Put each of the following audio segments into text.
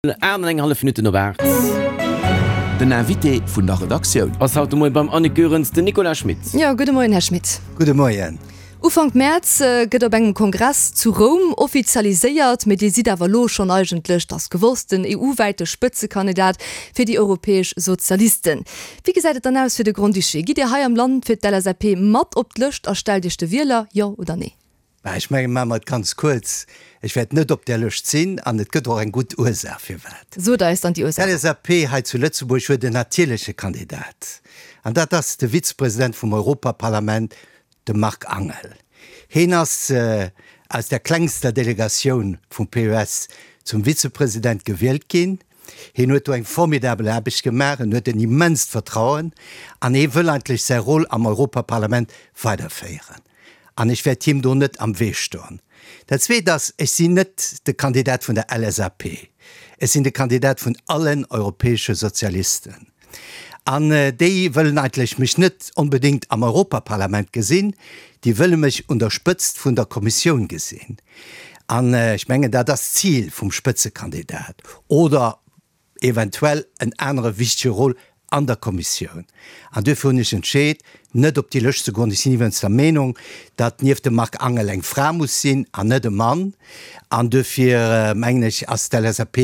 8 an eng hallef Minutten op 8. Den Invité vun der Redaktioun. Ass haut de Moien beim Annick Goerens den Nicolas Schmit. Jo, gudde Moien, Här Schmit. Gudde Moien. Ufank Mäerz gëtt op engem Kongress zu Roum offizialiséiert, mee Dir sidd awer elo schonn eigentlech, 't ass gewosst, den EU-wäite Spëtzekandidat fir déi europäesch Sozialisten. Wéi gesäit et dann aus fir de Grand-Duché? Gitt Dir hei am Land fir d'LSAP mat op d'Lëscht a stellt Iech de Wieler, jo oder nee? Bah, ech mengen, maache mer et ganz kuerz, Ech wäert net op där Lëscht sinn an et gëtt och eng gutt Ursaach firwat. Sot eis dann déi Ursaach. D'LSAP hei zu Lëtzebuerg huet en natierleche Kandidat an dat ass de Vizepresident vum Europaparlament, de Marc Angel. Heen ass aus der klengster Delegatioun vum PES zum Vizepresident gewielt ginn. Heen huet do eng formidabel Aarbecht gemaach, en huet en immenst Vertrauen an hee wëll eigentlech säi Rôle am Europaparlament weiderféieren. An ech wäert him do net am Wee stoen. Dat Zweet ass, ech sinn net de Kandidat vun der LSAP. Ech sinn de Kandidat vun allen europäesche Sozialisten. An déi wëllen eigentlech mech net onbedéngt am Europaparlament gesinn, déi wëlle mech un der Spëtzt vun der Kommissioun gesinn. An ech mengen, dat ass d'Zil vum Spëtzekandidat. Oder eventuell en anere wichtege Rôle an der Kommissioun. An duerfir hunn ech entscheet, net op déi Lëscht ze goen. Ech sinn iwwerens der Meenung, datt nieft dem Marc Angel eng Fra muss sinn an net e Mann. An duerfir mengen ech, ass d'LSAP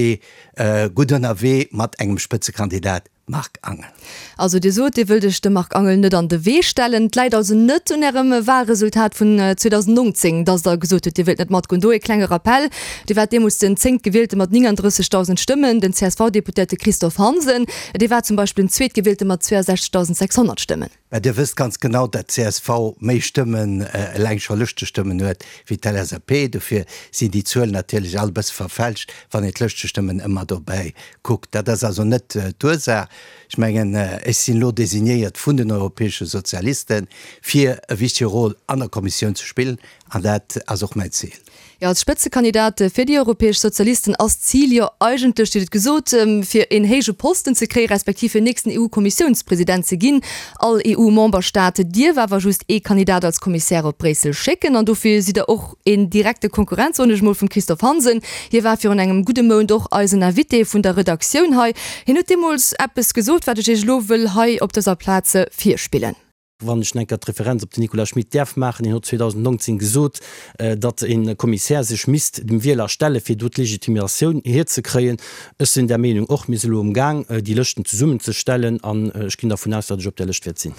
gutt ënnerwee mat engem Spëtzekandidat Marc Angel. Also Dir sot, Dir wëllt Iech dem Marc Angel net an de Wee stellen. Et läit also net un Ärem Wahlresultat vun 2019, datt Der gesot hutt, Dir wëllt net matgoen. Do ee klenge Rappell, Dir waart deemools den Zéngtgewielte mat 39.000 Stëmmen, den CSV-Deputéierte Christophe Hansen, dee war zum Beispill den Zweetgewielte mat 62.600 Stëmmen. Mä Dir wësst ganz genau, datt d'CSV méi Stëmmen, eleng scho Lëschtestëmmen huet, wéi d'LSAP. Dofir sinn déi Zuelen natierlech all e bësse verfälscht, wann een d'Lëschtestëmmen ëmmer dobäi kuckt. Dat ass also net d'Ursaach. Ech mengen, ech sinn elo designéiert vun den europäesche Sozialisten, fir e wichtege Rôle an der Kommissioun ze spillen, an dat ass och mäin Zil. Jo, als Spëtzekandidat fir déi europäesch Sozialisten ass d'Zil jo eigentlech, Dir hutt et gesot, fir een héije Posten ze kréien, respektiv fir nächsten EU-Kommissiounspresident ze ginn. All EU-Memberstaat dierf awer just ee Kandidat als Kommissär op Bréissel schécken an dofir sidd Der och een direkte Konkurrent, soen ech mol, vum Christophe Hansen. Hie war virun engem gudde Mount och eisen Invité vun der Redaktioun hei. Hien huet deemools eppes gesot, wat ech Iech elo wëll hei op dëser Plaz virspillen. Wann ech enker d'Referenz op den Nicolas Schmit däerf maachen, hien huet 2019 gesot, datt e Kommissär sech misst dem Wieler stellen, fir do d'Legitimatioun hierzekréien. Ech sinn där Meenung och. Mir si elo amgaang, déi Lëschten zesummenzestellen an ech ginn dervun aus, datt ech op där Lëscht wäert sinn.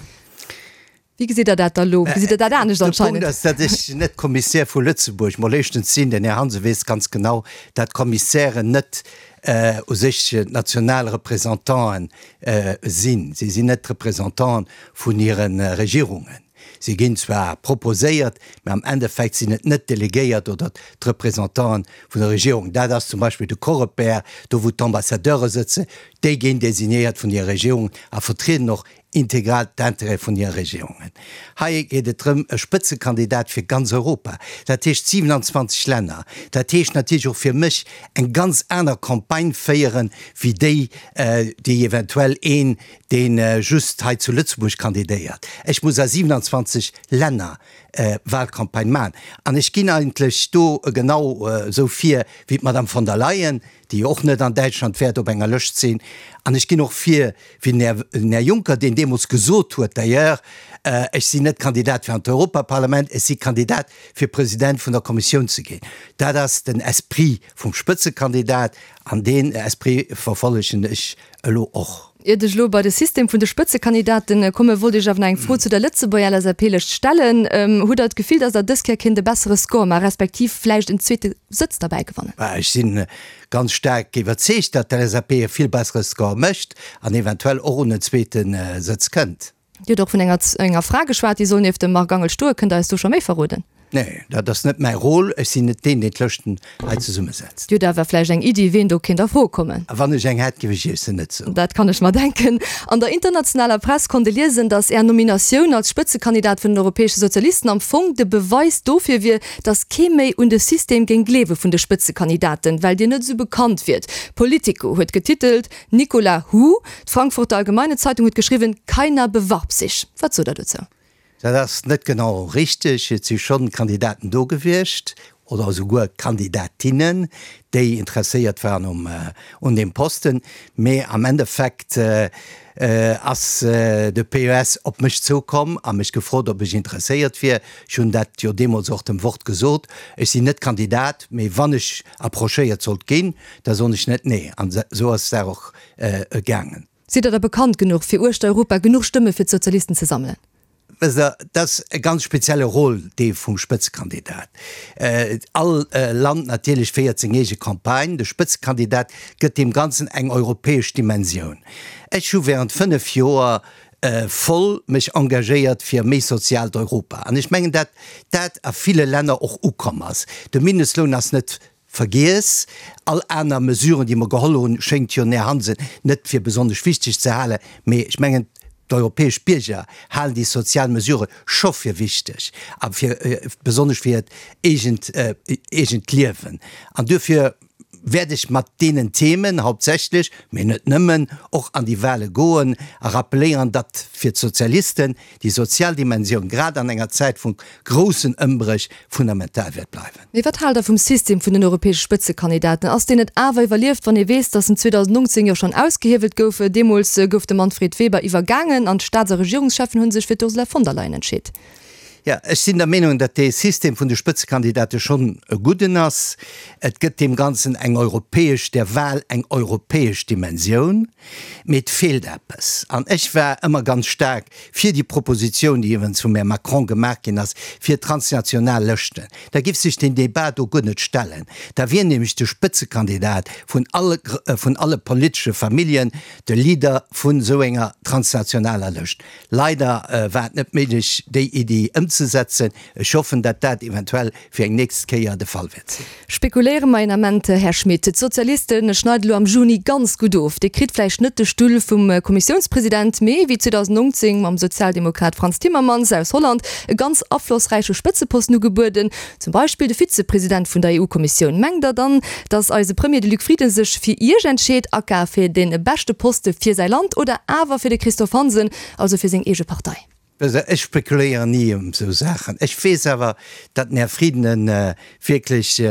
Wéi gesitt Der dat da elo? Gesitt Der dat anescht De Punkt ass, datt ech net Kommissär vu Lëtzebuerg, mol éischtens sinn. Den Här Hansen weess ganz genau, datt Kommissären net u sech national Représentanten sinn. Si sinn net d'Représentanten vun hire Regierungen. Si ginn zwar proposéiert, mä am Endeffekt sinn et net d'Delegéiert oder d'Représentanten vun der Regierung. Dat ass zum Beispill de Coreper, do wou d'Ambassadeure sëtzen, déi ginn designéiert vun hire Regierungen a vertrieden och integral d'Intérêt vun hire Regierungen. Hei geet et drëm, e Spëtzekandidat fir ganz Europa, dat heescht 27 Länner, dat heescht natierlech och fir mech eng ganz aner Campagne féieren, wéi déi, déi eventuell een, dee just hei zu Lëtzebuerg kandidéiert. Ech muss a 27 Länner Wahlcampagne maachen an ech ginn eigentlech do genau esou vir wéi d'Madame von der Leyen, déi jo och net an Däitschland wäert op enger Lëscht sinn, an ech ginn och vir wéi den Här Juncker, deen deemools gesot huet, d'ailleurs, ech sinn net Kandidat fir an d'Europaparlament, ech si Kandidat fir President vun der Kommissioun ze ginn. Dat ass den Esprit vum Spëtzekandidat an deen Esprit verfollegen ech elo och. Iert ech elo bei de System vun de Spëtzekandidaten kommen, wollt ech awer nach eng Fro zu der Lëtzebuerger LSAP-Lëscht stellen. Hutt Der d'Gefill, datt Der dës Kéier kéint e bessere Score maachen, respektiv vläicht en zweete Sëtz derbäi gewannen? Ech si ganz staark iwwerzeegt, datt d'LSAP e vill bessere Score mécht an eventuell och un en zweete Sëtz kënnt. Dir hutt och vun enger enger Fra geschwat, déi soll nieft dem Marc Angel stoen. Kënnt Der eis do scho méi verroden? Nee, dat ass net mäi Rôle. Ech sinn net deen, deen d'Lëschten hei zesummesetzt. Dir hutt awer vläicht eng Iddi, ween do kéint a Fro kommen? A wann ech eng hätt, géif ech Iech se net soen. Dat kann ech mer denken. An der internationaler Press konnt ee liesen, datt Är Nominatioun als Spëtzekandidat vun den Europäesche Sozialisten am Fong de Beweis dofir wier, datt kee méi un de System géing gleewe vun de Spëtzekandidaten, well Dir net esou bekannt wiert. Politico huet getitelt, Nicolas Who? D'Frankfurter Allgemeine Zeitung huet geschriwwen, Keiner bewarb sich. Wat sot Der dozou? Dat ass net genau richteg. Et si schonn Kandidaten do gewiescht. oder esouguer Kandidatinnen, déi interesséiert waren um un deem Posten. Mee am Endeffekt ass de PES op mech zoukomm a mech gefrot, ob ech interesséiert wier. Ech hunn dat jo deemools och dem Wort gesot, ech sinn net Kandidat, mee wann ech approchéiert sollt ginn, da soen ech net nee. An esou ass d'Saach och gaangen. Sidd Der da bekannt genuch, fir uechter Europa genuch Stëmme fir d'Sozialisten ze sammelen? Wësst Der, dat ass e ganz spezielle Rôle, dee vum Spëtzekandidat. All Land natierlech féiert seng eege Campagne. De Spëtzekandidat gëtt deem Ganzen eng europäesch Dimensioun. Ech hu während 5 Joer voll mech engagéiert fir e méi soziaalt Europa. An ech mengen, dat dat a ville Länner och ukomm ass. De Mindestloun ass net Vergiess, all aner Mesuren, déi mer geholl hunn, schéngt jo den Här Hansen net fir besonnesch wichteg ze halen. Mee ech mengen, d'europäesch Bierger halen déi sozial Mesurë scho fir wichteg a fir besonnesch fir hiert eegent, eegent Liewen. An duerfir wäert ech mat deenen Themen hauptsächlech, mee net nëmmen, och an déi Wahle goen a rappeléieren, datt fir d'Sozialisten déi sozial Dimensioun grad an enger Zäit vu groussen Ëmbréch fundamental wäert bleiwen. Mee wat haalt Der vum System vun den europäesche Spëtzekandidaten? Ass deen net awer iwwerlieft, wann ee weess, datt en 2019 jo schonn ausgehiewelt gouf? Deemools gouf de Manfred Weber iwwergaangen an d'Staats a Regierungscheffen hu sech fir d'Ursula von der Leyen entscheet. Jo, ech sinn der Meenung, datt dee System vun de Spëtzekandidate schonn e gudden ass. Et gëtt deem Ganzen eng europäesch, der Wahl eng europäesch Dimensioun. Mee et feelt eppes. An ech war ëmmer ganz staark fir déi Propositioun, déi iwwerens vum Här Macron gemaach ginn ass, fir transnational Lëschten. Da giff sech deen Débat do guer net stellen. Da wier nämlech de Spëtzekandidat vun alle, vun alle politesche Familljen de Leader vun esou enger transnationaler Lëscht. Leider war et net méiglech, déi Iddi ëmzesetzen. Ech hoffen, dat dat eventuell fir eng nächst Kéier de Fall wäert sinn. Spekuléiere mer een Ament, Här Schmit. D'Sozialiste schneiden elo am Juni ganz gutt of. Dir kritt vläicht net de Stull vum Kommissiounspresident, mee wéi 2019 mam Sozialdemokrat Frans Timmermans aus Holland e ganz aflossräiche Spëtzeposten ugebueden, zum Beispill de Vizepresident vun der EU-Kommissioun. Mengt Der dann, datt eise Premier, de Luc Frieden, sech fir Iech entscheet, aka fir dee beschte Poste fir säi Land, oder awer fir de Christophe Hansen, also fir seng eege Partei? Ech spekuléieren ni ëm esou Saachen. Ech weess awer, datt den Här Frieden e wierklech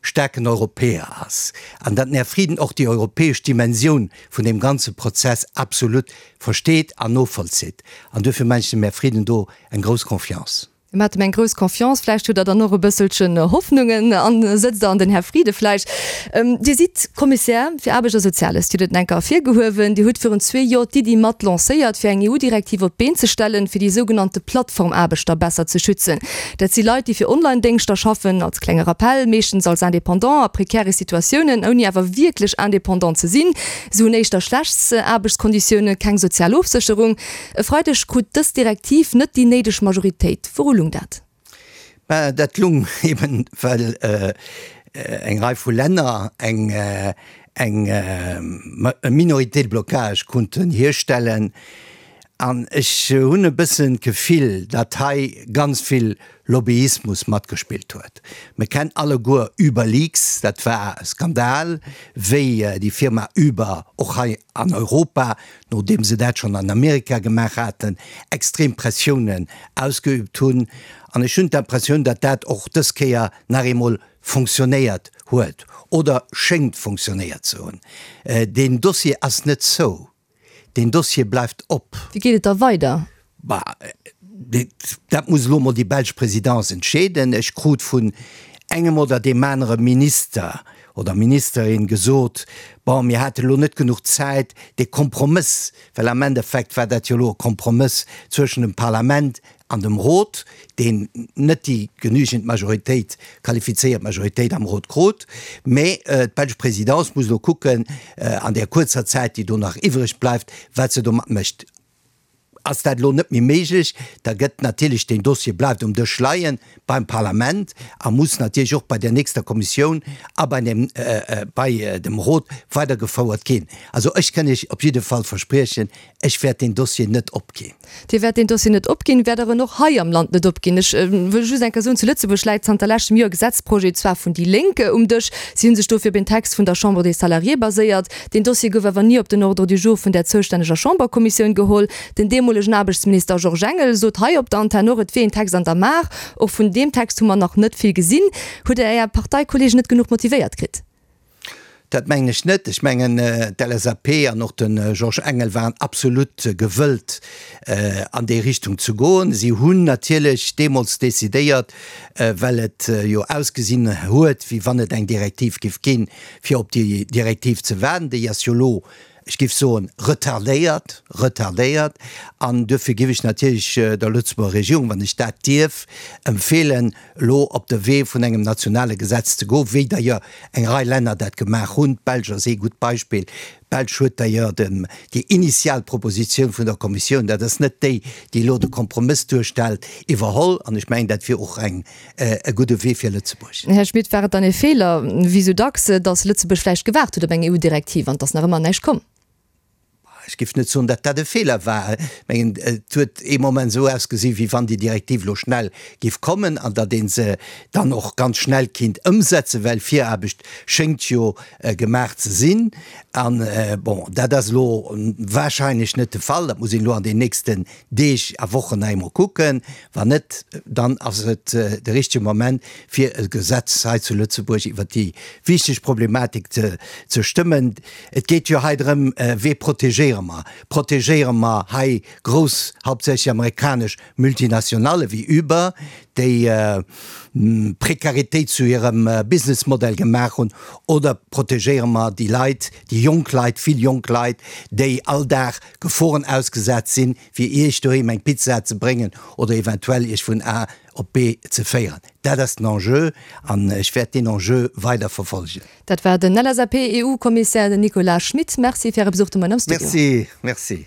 staarken Europäer ass an datt den Här Frieden och déi europäesch Dimensioun vun deem ganze Prozess absolut versteet an novollzitt. An duerfir maachen ech dem Här Frieden do eng grouss Confiance. Dir maacht em eng grouss Confiance, vläicht hutt Der dann och e bësselchen Hoffnungen an sëtzt Der an den Här Frieden vläicht. Dir sidd Kommissär fir Aarbecht a Soziales, Dir hutt et enker ervirgehuewen. Dir hutt virun zwee Joer d'Iddi mat lancéiert, fir eng EU-Direktiv op d'Been ze stellen, fir déi sougenannte Plattformaarbechter besser ze schützen. Dat si Leit, déi fir Online-Déngschter schaffen, als klenge Rappell, meeschtens als Indépendant a prekäre Situatiounen, ouni awer wierklech Indépendant ze sinn. Se hunn éischter schlecht Aarbechtskonditiounen, keng sozial Ofsécherung. E Freideg krut dës Direktiv net déi néideg Majoritéit. Wouru lung dat? Mä dat lung eben, well eng Rei vu Länner eng eng Minorité de blocage konnten hierstellen. An ech hunn e bëssen d'Gefill, datt hei ganz vill Lobbyismus matgespillt huet. Mir kennen alleguer Uberleaks, dat war e Skandal, wéi déi Firma Uber och hei an Europa, nodeem se dat schonn an Amerika gemaach haten, extrem Pressiounen ausgeübt hunn. An ech hunn d'Impressioun, datt dat och dës Kéier nach eemol fonctionnéiert huet oder schéngt fonctionnéiert ze hunn. Deen Dossier ass net zou. Deen Dossier bleift op. Wéi geet et da weider? Bah, dat muss elo emol déi belsch Présidence entscheeden. Ech krut vun engem oder deem anere Minister oder Ministerin gesot, bon, mir hate elo net genuch Zäit, dee Kompromëss, well am Endeffekt war dat jo elo e Kompromëss zwëschen dem Parlament an dem Rot, deen net déi genügend Majoritéit, qualifizéiert Majoritéit am Rot krut. Mä d'belsch Présidence muss elo kucken, an där kuerzer Zäit, déi do nach iwwreg bleift, wat se domat mécht. Ass dat elo net méi méiglech, da gëtt natierlech deen Dossier bleift um Dësch leie beim Parlament a muss natierlech och bei der nächster Kommissioun a bei dem, bei dem Rot weidergefouert ginn. Also ech kënn Iech op jidde Fall verspriechen, Ech wäert deen Dossier net opginn. Dir wäert deen Dossier net opginn, wäert Der en och hei am Land net opginn? Ech wëll just eng Kéier soen, zu Lëtzebuerg läit zanter leschtem Joer e Gesetzprojet, zwar vun déi Lénk, um Dësch. Si hu sech dofir op een Text vun der Chambre des Salariés baséiert. Deen Dossier gouf awer ni op den Ordre du jour vun där zoustänneger Chamberkommissioun geholl. Den deemolege. deemolegen Aarbechtsminister Georges Engel sot hei op der Antenn och, et wier een Text an der Maach. Och vun deem Text hu mer nach net vill gesinn. Hutt Der Är Parteikollegen net genuch motivéiert kritt? Dat mengen ech net. Ech mengen, d'LSAP an och de Georges Engel waren absolut gewëllt, an déi Richtung ze goen. Si hunn natierlech deemools decidéiert, well et jo ausgesinn huet, wéi wann et eng Direktiv géif ginn, fir op déi Direktiv ze waarden. Déi ass jo elo, ech géif soen, retardéiert, retardéiert. An duerfir géif ech natierlech der Lëtzebuerger Regierung, wann ech dat dierf, empfeelen, elo op de Wee vun engem nationale Gesetz ze goen, wéi d'ailleurs eng Rei Länner dat gemaach hunn. D'Belsch ass ee gutt Beispill. D'Belsch huet d'ailleurs dem, déi initial Propositioun vun der Kommissioun, dat ass net déi, déi elo de Kompromëss duerstellt, iwwerholl. An ech mengen, dat wier och eng, e gudde Wee fir Lëtzebuerg. Här Schmit, war et dann ee Feeler, wéi esou dacks, datt Lëtzebuerg vläicht gewaart huet op eng EU-Direktiv an et ass nach ëmmer näischt komm? Ech géif net soen, datt dat e Feeler war. Ech mengen, et huet ee Moment esou ausgesinn, wéi wann déi Direktiv elo schnell géif kommen an datt ee se dann och ganz schnell kinnt ëmsetzen, well Viraarbecht schéngt jo gemaach ze sinn. An, bon, dat ass elo wahrscheinlech net de Fall. Dat muss een elo an den nächsten Deeg a Wochen nach eemol kucken. Wann net, dann ass et de richtege Moment, fir e Gesetz hei zu Lëtzebuerg iwwert déi wichteg Problematik ze stëmmen. Et geet jo hei drëm, Wee protegéiere mer? Protegéiere mer hei grouss, hauptsächlech amerikanesch Multinationale wéi Uber, déi Prekaritéit zu hirem Businessmodell gemaach hunn, oder protegéiere mer déi Leit, déi jonk Leit, vill jonk Leit, déi all Dag Geforen ausgesat sinn, fir Iech doheem eng Pizza ze bréngen oder eventuell Iech vun A op B ze féieren? Dat ass den Enjeu an ech wäert deen Enjeu weider verfolgen. Dat war den LSAP-EU-Kommissär Nicolas Schmit. Merci fir Äre Besuch de Moien am Studio. Merci, merci.